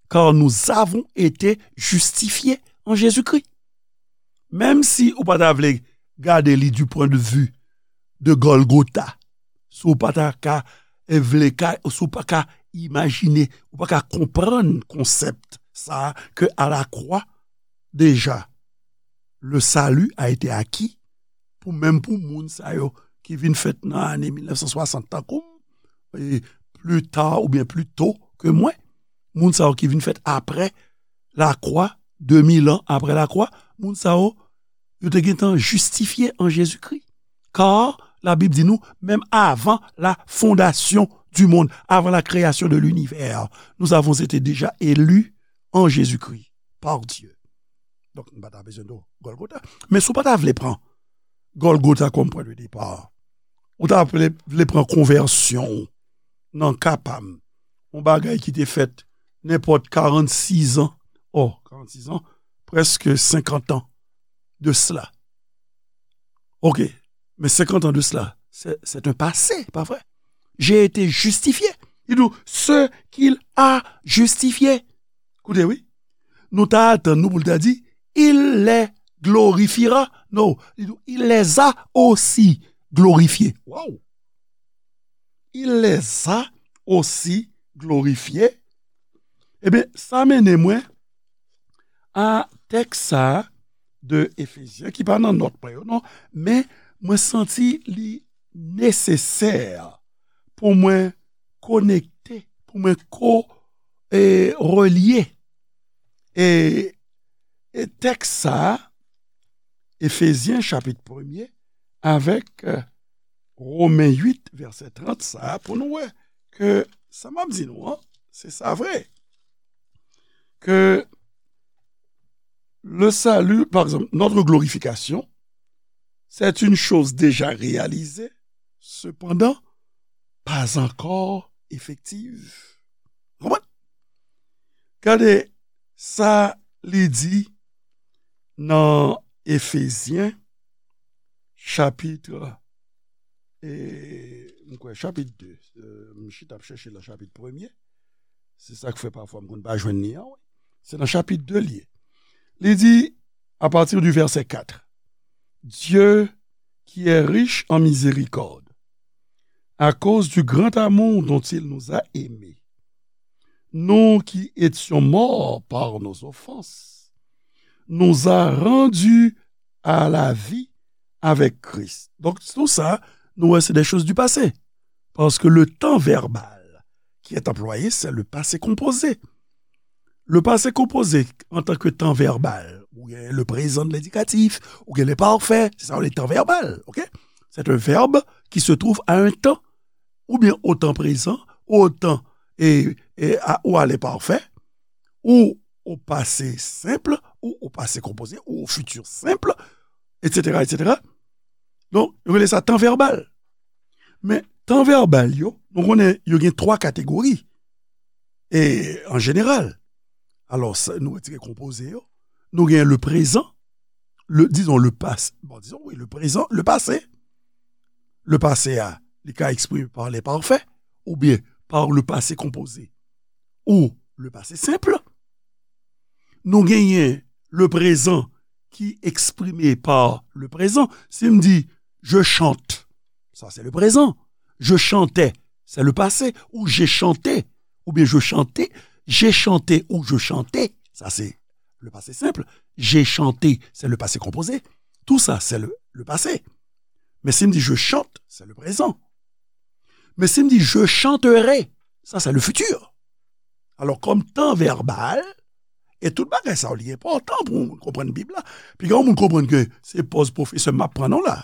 car nous avons été justifiés en Jésus-Christ. Menm si ou pa ta vle gade li du point de vue de Golgotha, si w pa ta ka, eh, vle ka, si w pa ka imajine, ou pa ka konprann konsèp sa a, ke à la croix, déjà, le salut a été acquis, pou menm pou moun sa yo ki vin fèt nan ane mil nèf san swasant tankou m, e pli ta oubyen pli to ke mwen, moun sa yo ki vin fèt apre lakwa, de mil an apre lakwa, moun sa yo, yo te gentan jistifye an Jezikri. Kar la Bib di nou, menm avan la fondation du monde, avant la création de l'univers, nous avons été déjà élus en Jésus-Christ par Dieu. Donk, nou pa ta bezwen de Golgotha. Men si w pa ta vle pran Golgotha kòm pwen de depa, ou ta vle, vle pran konvèsyon w nan ka pa m, yon bagay ki te fèt nenpòt karannsis an, oh, karannsis an, prèske senkant an de cela. Ok, men senkant an de cela, c'est, c'est un passé, pa vre? J'ai été justifié. Il dit, ce qu'il a justifié. Koute, wi. Nou ta atann nou pou l ta di, il les glorifiera. Non, li di, il les a aussi glorifiés. Wow! Il les a aussi glorifiés. Ebyen, sa mennen mwen a tèks sa a de Efezyen, ki pa nan nòt mwen yo, non, men mwen santi li nesesè pou mwen konekte, pou mwen ko, e, relye, e, e tèks sa a, Efezyen chapit premye, avèk, e, Romen uit, vèsè trant sa a, pou nou wè ke sa m ap di nou an, se sa vre. Que le salut, par exemple, notre glorification, c'est une chose déjà réalisée, cependant, pas encore effective. Konprann? Gade sa li di nan Efezyen, chapit, e, m kwè, chapit de. E, m chita ap chèche nan chapit premye. Se sa k fè pafwa m konn pa jwenn li an, wi. Se nan chapit de li ye. Li di, à partir du verset quatre, Dieu, qui est riche en miséricorde, à cause du grand amour dont il nous a aimés, nous qui étions morts par nos offenses, nous a rendus à la vie avec Christ. Donk, tou sa, nou wè, se des choses du passé. Parce que le temps verbal qui est employé, c'est le passé composé. Le passé composé, en tant que temps verbal, ou gen le présent de l'indicatif, ou gen le parfait, c'est ça, le temps verbal, ok? C'est un verbe qui se trouve à un temps, ou bien au temps présent, ou au temps, et, et à, ou à l'imparfait, ou au passé simple, ou au passé composé, ou au futur simple, et cetera, et cetera. Donk, yo rele sa tan vèbal. Men, tan vèbal yo, nou konnen yo gen twa kategori, e, an jeneral. Alò, sa, nou retire konpoze yo. Nou gen le présent, le, disons, le passé. Bon, disons, oui, le présent, le passé. Le passé a, li ka eksprime par l'imparfait, oubyen par le passé composé, ou le passé simple. Nou genyen le présent ki eksprime par le présent. Si m di, je chante, sa se le présent. Je chantais, c'est le passé. Ou j'ai chanté, oubyen je chantais, j'ai chanté ou je chantais, sa se le passé simple. J'ai chanté, c'est le passé composé. Tout ça, c'est le, le passé. Men si m di je chante, c'est le présent. Men si m di je chanterai, sa se le futur. Alò, kòm tan vèbal, e tout bagay sa yo, li enpòtan pou moun konprann Bib la. Piga yon moun konprann ke se pòz pwofesè m ap pran non la.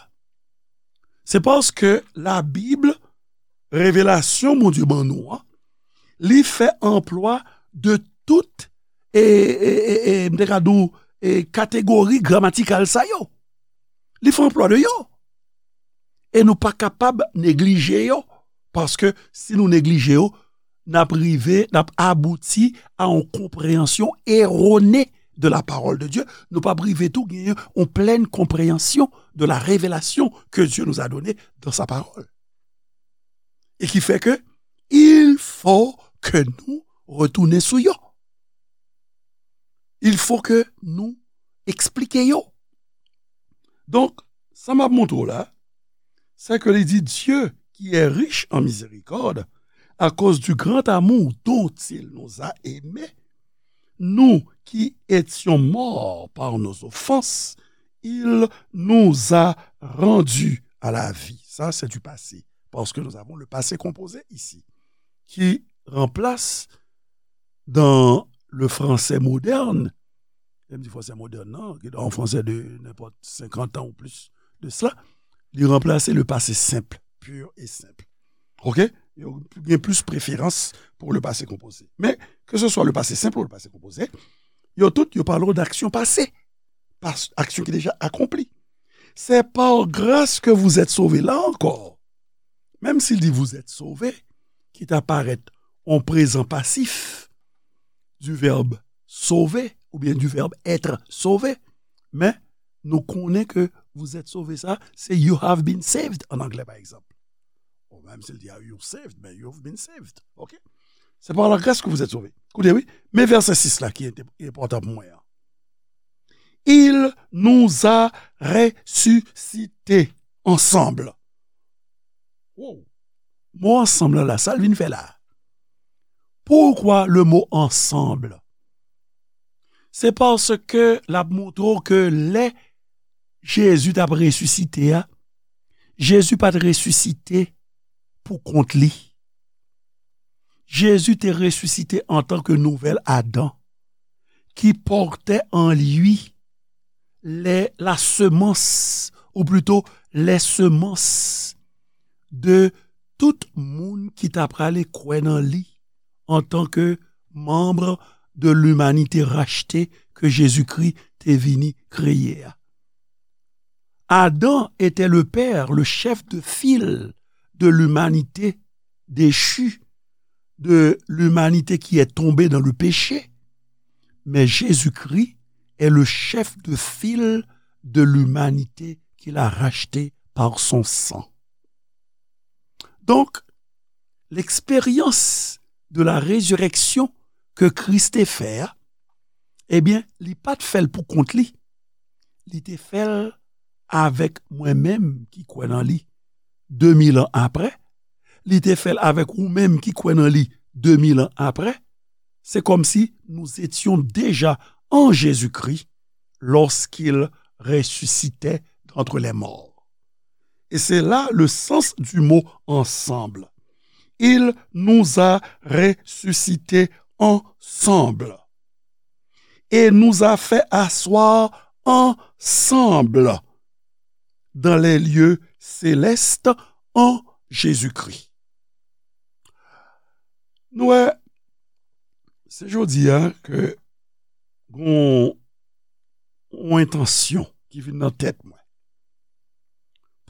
Se paske Labib, revelasyon Bondye ban nou an, li fè anplwa de tout, e, e, e, e, m te ka di w, e, kategori gramatikal sa yo. Li fè anplwa de yo. E nou pa kapab neglije yo, paske si nou neglije yo, n ap rive, n ap abouti a yon konpreyansyon erone de la parole de Dieu. Nou p ap rive tou genyen yon plèn konpreyansyon de la révélation que Dieu nous a donnée dans sa parole. E ki fè ke il faut que nou retounen sou yo. Il faut que nou eksplike yo. Donk, sa m ap montre w la, c'est que li di, Dieu, qui est riche en miséricorde, à cause du grand amour dont il nous a aimés, nous qui étions morts par nos offenses, il nous a rendus à la vie. Ça, c'est du passé, parce que nous avons le passé composé ici, qui remplace dans le français moderne, lè m di français moderne, non, qui est un français de n'importe cinquante ans ou plus de cela, li ranplase le passé simple, pur et simple. OK? Yo gen plis preferans pou le passé composé. Men, ke se swa le passé simple ou le passé composé, yo tout, yo pale w d'aksyon pase, pas, aksyon ki deja akonpli. C'est par grâce que vous êtes sauvés. La ankò, menm si l di vous êtes sauvés, ki ta parèt on prezan pasif du verbe sauver oubyen du verbe être sauvé, men nou konnen ke vous êtes sauvés sa, se you have been saved an anglè, pa egzanp. Ou menm si l di, are you saved, men you've been saved. OK? C'est par la grâce que vous êtes sauvés. Koute, wi. Men vèsè sis la ki enpòtan pou mwen an. Il nous a ressuscités ensemble. Wow. Mo ansanm la, sa l vin fè la? Pourquoi le mot ensemble? Se paske l ap montre w ke lè Jezi t ap resisite a, Jezi pa t resisite pou kont li. Jezi te resisite antanke nouvèl Adan, qui portait en lui les, la semence, ou plito, les semences de tout moun ki ta prale kwè nan li antanke manm de limanite rachte ke Jezikri te vini kreye a. Adam était le père, le chef de file de l'humanité déchue, de l'humanité qui est tombée dans le péché. Mais Jésus-Christ est le chef de file de l'humanité qu'il a racheté par son sang. Donc, l'expérience de la résurrection que Christ te fè a, ebyen, li pa t fè l pou kont li. Li te fè l avèk mwen menm ki kwè nan li de mil an apre. Li te fè l avèk ou menm ki kwè nan li de mil an apre. C'est comme si nous étions déjà en Jésus-Christ lorsqu'il ressuscitait d'entre les morts. Et c'est là le sens du mot ensemble. Il nous a ressuscités ensemble et nous a fait asseoir ensemble dans les lieux célestes en Jésus-Christ. Nou wè, se jodi a ke gon yon entansyon ki vin nan tèt mwen.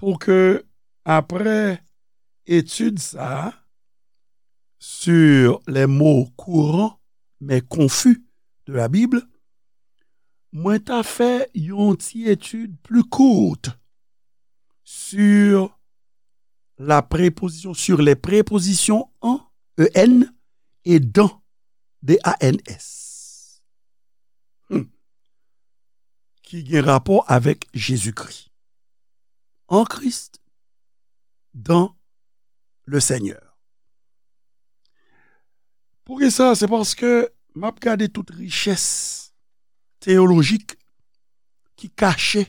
Pou ke, apre etid sa a, sur les mots courants mais confus de la Bible, mwen ta fè yon ti etid pli kout sur la préposition, sur les prépositions en, E N, et dans, D A N S, hmm, ki gen rapò avèk Jezikri. En Christ, dans le Seigneur. Poukisa? Se paske m ap gade tout richès teyolojik ki kache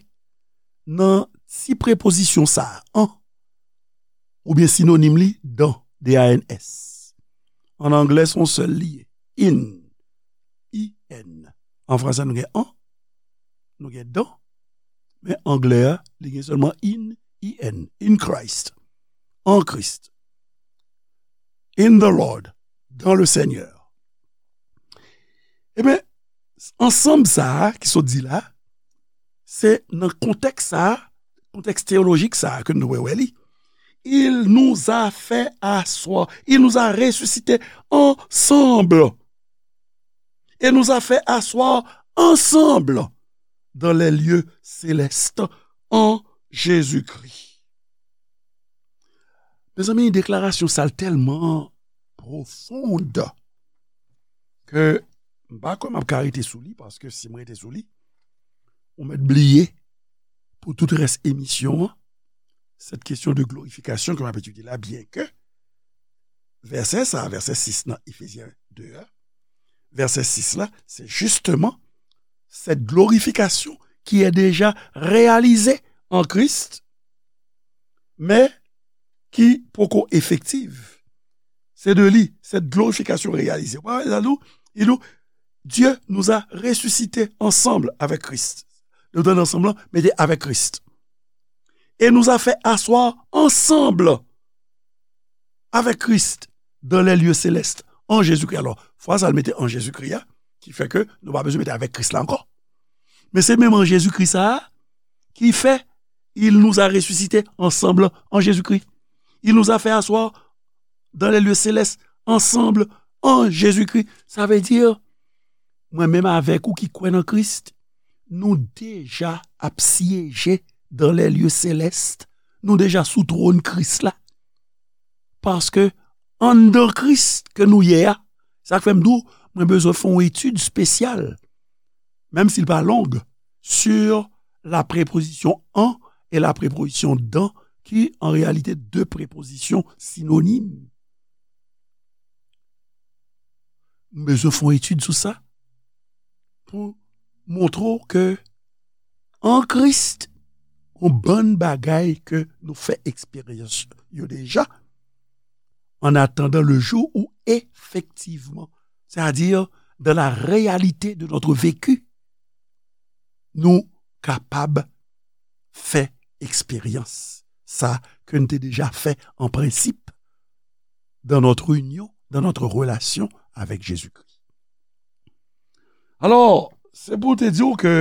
nan ti prepozisyon sa a, en, oubyen sinonim li, dans, D A N S. An anglè, se yon sèl li ye. In. I N. An fransè, nou gen an, nou gen dans, men anglè a, li gen sèlman in, I N, in Christ, en Christ, in the Lord, dans le Seigneur. Ebyen, ansanm sa a ki sot di la, se nan kontèks sa a, kontèks teyolojik sa a ke nou dwe wè li. Il nous a fait asseoir, il nous a ressuscités ensemble. Et nous a fait asseoir ensemble dans les lieux célestes en Jésus-Christ. Mezanmi, deklarasyon sa a tèlman pwofond ke m pa kwè m ap ka rete sou li, paske si m rete sou li, ou mèt bliye pou tout rès emisyon an, cette question de glorification ke m ap etidye la, byen ke vèsè sa, vèsè sis nan Efezyen de a, vèsè sis la, se justement cette glorification qui est déjà réalisée en Christ, men ki poko efektiv. Se de li, cette glorification réalisée. Wè, la nou, il nous, Dieu nous a ressuscités ensemble avec Christ. Nou tande ansanm lan, mete avec Christ. Et nous a fait asseoir ensemble avec Christ dans les lieux célestes en Jésus-Christ. Alò, fraz sa l mete en Jésus-Christ a, ki fè ke nou pa bezwen mete avec Christ la ankò. Men se menm en Jésus-Christ sa a ki fè, il nous a ressuscités ensemble en Jésus-Christ. Il nous a fait asseoir dans les lieux célestes ensemble en Jésus-Christ. Sa vle di, mwen menm avèk ou ki kwè nan Kris, nou deja ap syeje dans les lieux célestes. Nou deja sou twòn Kris la. Paske anndan Kris ke nou ye a, sa k fè m di w, mwen bezwen fè yon etid espesyal, menm si l pa long, sur la préposition en et la préposition dans, ki an reyalite de prepozisyon sinonim. M bezwen fè yon etid sou sa pou montre w ke an Kris, yon bann bagay ke nou fè eksperyans yo deja, en attendant le jour où effectivement, c'est-à-dire dans la réalité de notre vécu, nou kapab fè eksperyans sa ke n te deja fè an prensip dans notre union, dans notre relation avec Jésus-Christ. Alò, se pou te di w ke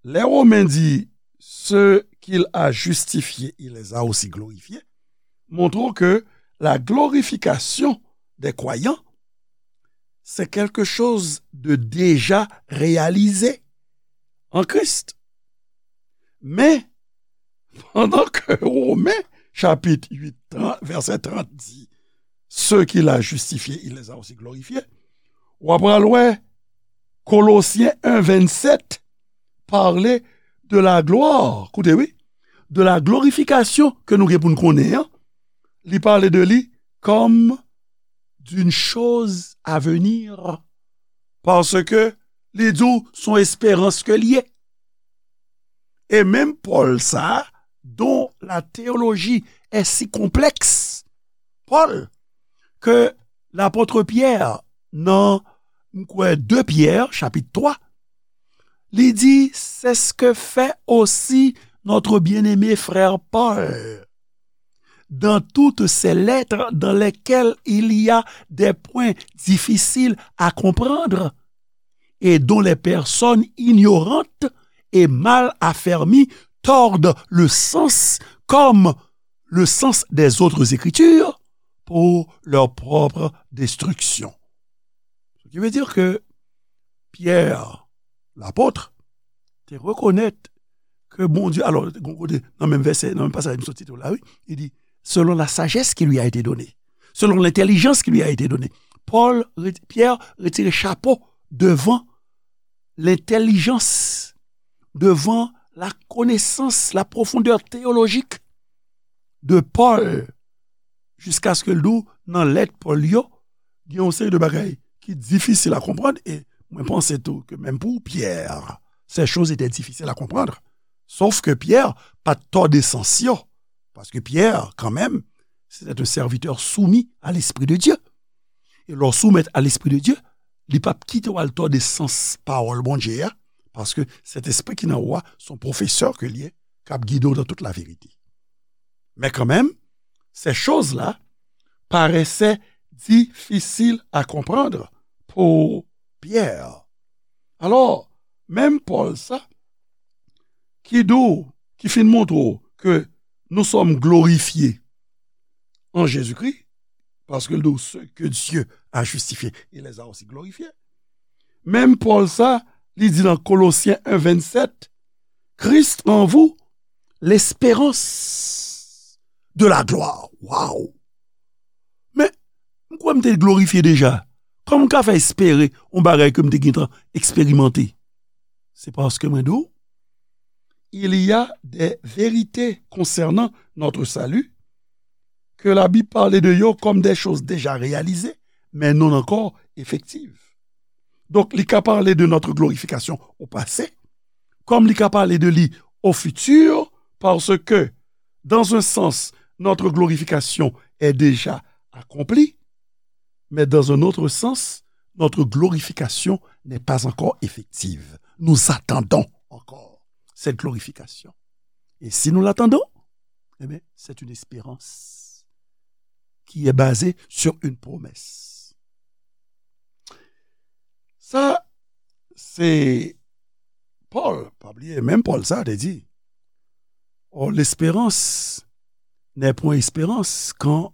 lè Women di, ceux qu'il a justifiés, il les a aussi glorifiés, montre que la glorification des croyants, c'est quelque chose de déjà réalisé en Christ. Men, pandan ke Women, chapit uit, trant, vèsè trant di, ceux qu'il a justifiés, il les a aussi glorifiés, w ap pral wè Kolosyen en vennsèt pale de la gloire, koute wi, de la glorification ke nou gen pou n konnen an, li pale de li comme d'une chose à venir, paske li di w se yon esperans ke l ye. E menm Pòl sa a, dont la théologie est si complexe, Pòl, ke lapòt Pyè nan, m kwè, de Pyè, chapit twa, li di, c'est ce que fait aussi notre bien-aimé frère Paul dans toutes ses lettres dans lesquelles il y a des points difficiles à comprendre et dont les personnes ignorantes et mal affermies tordent le sens comme le sens des autres écritures pour leur propre destruction. Ce qui veut dire que Pierre, l'apôtre, te rekonèt ke Bondye, alò, gon kote, nan menm vèsè, nan menm pasaj m sot site w la, wi, li di, selon la sagesse qui lui a été donnée, selon l'intelligence qui lui a été donnée. Paul, Pierre retire chapo devan lentèlijans, devan la konesans, la profondeur théologique de Paul, jiskaske l di w nan lèt Pòl yo, gen yon seri de bagay ki difisil a konprann, e mwen panse tou ke menm pou Pyè, ces choses étaient difficiles à comprendre. Sòf ke Pyè pa t tòde sans yo. Paske Pyè, kanmenm, se te yon sèvitè soumi a Lespri de Dye. E lè w soumèt a Lespri de Dye, li p ap kite w al tòde sans pawòl Bondye a, paske Sentespri ki nan ou a, se yon pwofesè ke l ye, k ap gide w nan tout laverite. Men kanmenm, ces choses-là paraissaient difficiles à comprendre pour Pierre. Alò, menm Pòl sa, ki di w, ki fin montre w ke nous sommes glorifiés en Jésus-Christ, paske l di w, ceux que Dieu a justifiés, il les a aussi glorifiés. Menm Pòl sa, li di nan Kolosyen en vennsèt, Christ en vous, l'espérance de la gloire. Waw! Men, m kwè m te glorifye deja. Kòman m ka fè espere yon bagay ke m te gentan eksperimante? Se paske mwen di w, il y a des vérités concernant notre salut que la Bible parle de yo comme des choses déjà réalisées, mais non encore effectives. Donk, li ka pale de notre glorification au passé, comme li ka pale de li au futur, parce que, dans un sens, notre glorification est déjà accomplie, mais dans un autre sens, notre glorification n'est pas encore effective. Nous attendons encore cette glorification. Et si nous l'attendons, eh bien, c'est une espérance qui est basée sur une promesse. Sa, se Pòl, pa bliye, menm Pòl sa te di, or, l'espérance n'est point espérance quand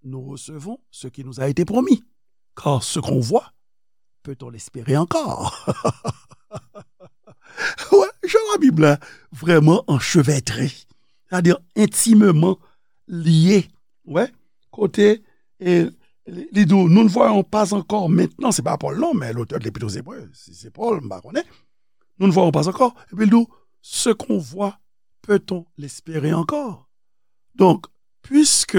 nous recevons ce qui nous a été promis. Car ce qu'on voit, peut-on l'espérer encore? Wè, jan Labib la vrèman anchevètre, c'est-à-dire intimement lié. Wè, kote, e, li, li di w, nous ne voyons pas encore maintenant, se pa Pòl non, men lotè de Lepit aux Hébreux, si se Pòl, m pa konnen. Nous ne voyons pas encore. Epi l di w, ce qu'on voit, peut-on l'espérer encore? Donc, puisque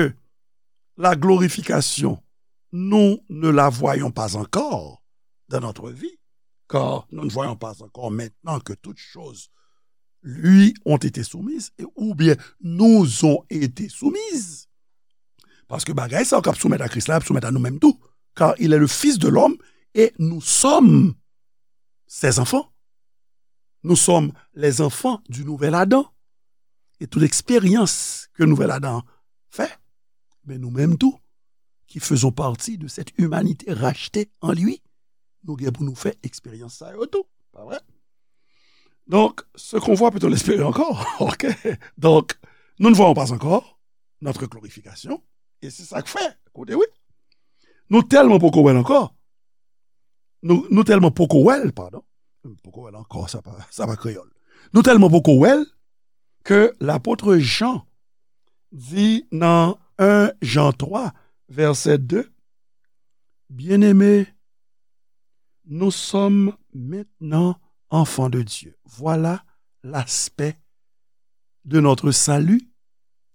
la glorification, nous ne la voyons pas encore dans notre vie, car nous ne voyons pas encore maintenant que toutes choses lui ont été soumises, et, ou bien nous ont été soumises. Paske bagay sa yo k ap soumèt a Kris la, ap soumèt a nou menm tou. Car il est le Fils de l'homme et nous sommes ses enfants. Nous sommes les enfants du nouvel Adam. Et toute expérience que nouvel Adam fait, mais nous-mêmes tout, qui faisons partie de cette humanité rachetée en lui, nou gen pou nou fè eksperyans sa yo tou. Pa vre? Donc, ce qu'on voit, peut-on l'espérer encore? OK? Donc, nous ne voyons pas encore notre glorification. E se sa k fè, koute wi. Nou tèlman poko wè l ankò. Nou, nou tèlman poko wè l, padon. Poko wè l ankò, sa pa, sa pa kreyòl. Nou tèlman poko wè l ke lapot Jan di nan en Jan twa, vèsè de, Bien-aimés, nous sommes maintenant enfants de Dieu. Voilà l'aspect de notre salut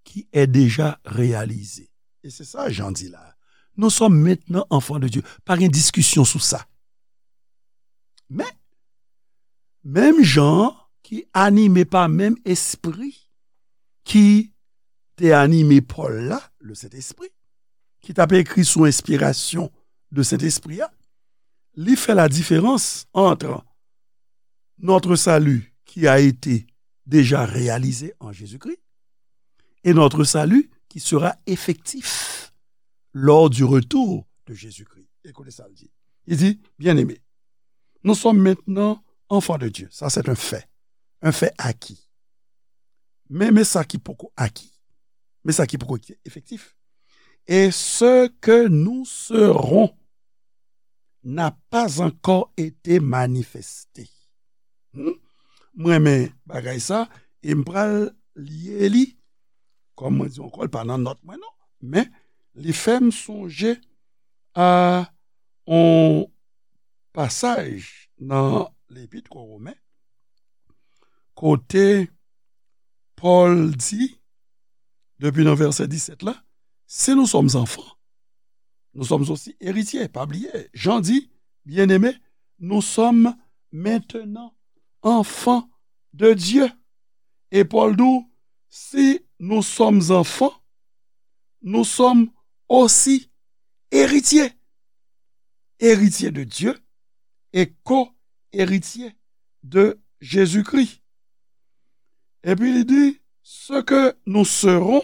qui est déjà réalisé. E se sa Jan di la. Nous sommes maintenant enfants de Dieu. Pa gen diskisyon sou sa. Men, menm Jan ki anime pa menm Espri ki te anime Pòl la, le Sentespri, ki t ap ekri sou enspirasyon de Sentespri a, li fè la diferans ant notre salut qui a été déjà réalisé en Jésus-Christ et notre salut qui sera effectif lors du retour de Jésus-Christ. Ekoute sa l di. Li di, Bien-aimés, nous sommes maintenant enfants de Dieu. Ça, c'est un fait. Un fait acquis. Men, men sa ki poko aki. Men sa ki poko efektif. Et ce que nous serons n'a pas encore été manifesté. Hmm? M renmen bagay sa, e m pral lye li, kòm mwen di ankò, l pa nan nòt mwen non, men li fè m sonje a yon pasaj nan Lepit o Women, kote Pòl di, depi nan vèsè disèt la, si nous sommes enfants, nous sommes aussi héritiers. Pa bliye, Jan di, Bien-aimés, nous sommes maintenant enfants de Dieu. E Pòl di w, si nous sommes enfants, nous sommes aussi héritiers, héritiers de Dieu et co-héritiers de Jésus-Christ. Epi li di, ce que nous serons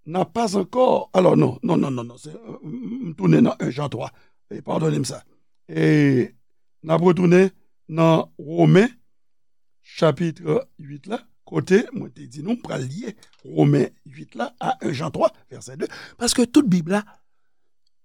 n'a pas encore. Alors, non, non, non, non, non, se, euh, m tounen nan un Jan twa. E padone m sa. E n ap retounen nan Women, chapit uit la, kote mwen te di nou, m pral lye Women uit la a un Jan twa, vèsè de. Paske tout Bib la,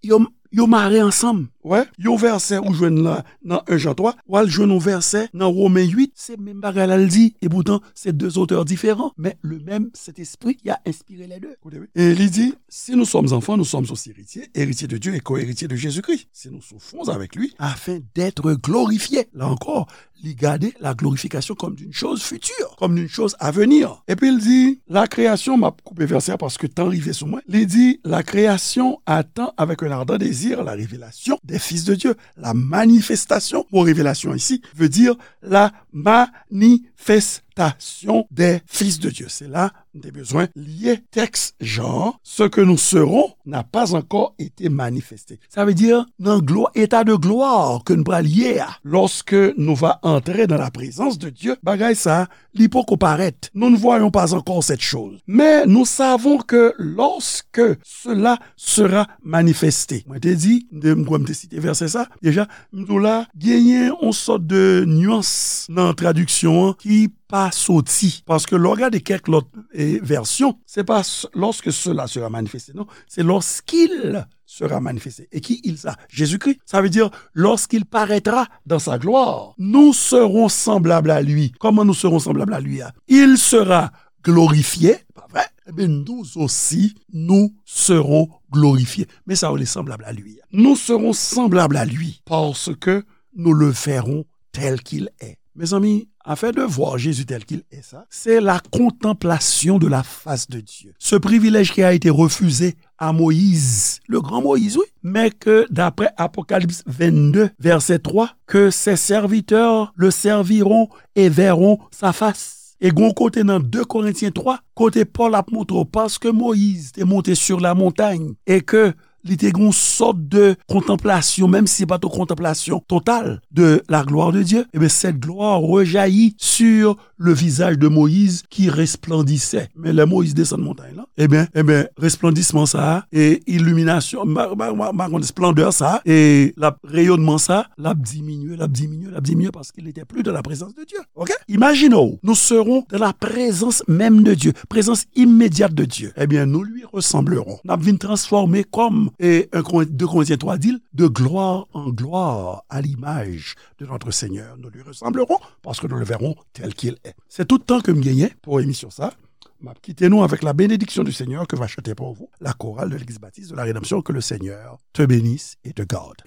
yo, yo mare ansanm. Wè, yon vèsè ou jwenn la nan un Jan twa, w al jwenn yon vèsè nan Women uit, se menm bagay la l di. E poutan, se de zotè diferan, men le menm Sentespri ki a enspire les deux. Koute, wi. E li di, si nous sommes enfants, nous sommes aussi héritiers, héritiers de Dieu et co-héritiers de Jésus-Christ. Si nous souffrons avec lui, afin d'être glorifiés. Là encore, li gade la glorification comme d'une chose future, comme d'une chose à venir. Epi l di, la création, m ap koupe vèsè a paske tan rive sou mwen. Li di, la création attend avec un ardent désir la révélation des fils de Dieu. La manifestation, mo révélation ici veut dire la manifestation des fils de Dieu. Se la m te bezwen lye tèks Jan an, ce que nous serons n'a pas encore été manifesté. Sa vle di, nan glwa, état de gloire ke n pral ye a, lorsque nous va entrer dans la présence de Dieu, bagay sa, li poko parèt. Nous ne voyons pas encore cette chose. Mais nous savons que lorsque cela sera manifesté. Mwen te di, m te, m kwè m te site vèsè sa, deja, m di w la, genyen yon sòt de nyans nan tradiksyon an ki pa soti. Paske lè w gade kèk lòt, e, vèsyon, se pa s-, lorsque cela sera manifesté, non, se lorsqu'il sera manifesté. E ki il sa? Jésus-Christ. Ça veut dire, lorsqu'il paraîtra dans sa gloire, nous serons semblables à lui. Comment nous serons semblables à lui, hein? Il sera glorifié, pa vre? Ebyen, nous aussi, nous serons glorifiés. Men sa yo, les semblables à lui. Nous serons semblables à lui parce que nous le verrons tel qu'il est. Mes amis, afin de voir Jésus tel qu'il est, ça, c'est la contemplation de la face de Dieu. Ce privilège qui a été refusé à Moïse, le grand Moïse, oui, mais que d'après Apocalypse vingt-deux, verset trois, que ses serviteurs le serviront et verront sa face. E gon kote nan deux Corinthiens trois, kote Pòl ap montre w, paske Moyiz te monte sur la montagne e ke li te gon sòt de kontanplasyon, menm si se pa t yon kontanplasyon total de la gloire de Dieu, eh bien, cette gloire rejaillit sur le visage de Moïse qui resplendissait. Men lè Moyiz desann montay lan, ebyen, ebyen, resplendisman sa a, e iliminasyon, ma, ma, ma, ma konn esplandè sa a, e l ap, reyonnman sa a, l ap diminye, l ap diminye, l ap diminye, paske li te pli de la prezans de Dieu. Ok? Imagine-w, nous serons dans la présence même de Dieu, présence immédiate de Dieu. Eh bien, nous lui ressemblerons. N ap vin transfòme kòm, e, un Corin-, deux Corinthiens trois di l, de gloire en gloire à l'image de notre Seigneur. Nous lui ressemblerons parce que nous le verrons tel qu'il est. C'est tout tan ke m genyen pou emisyon sa. M ap kite nou avec la bénédiction du Seigneur que va chanter pour vous la chorale de l'église baptiste de la rédemption. Que le Seigneur te bénisse et te garde.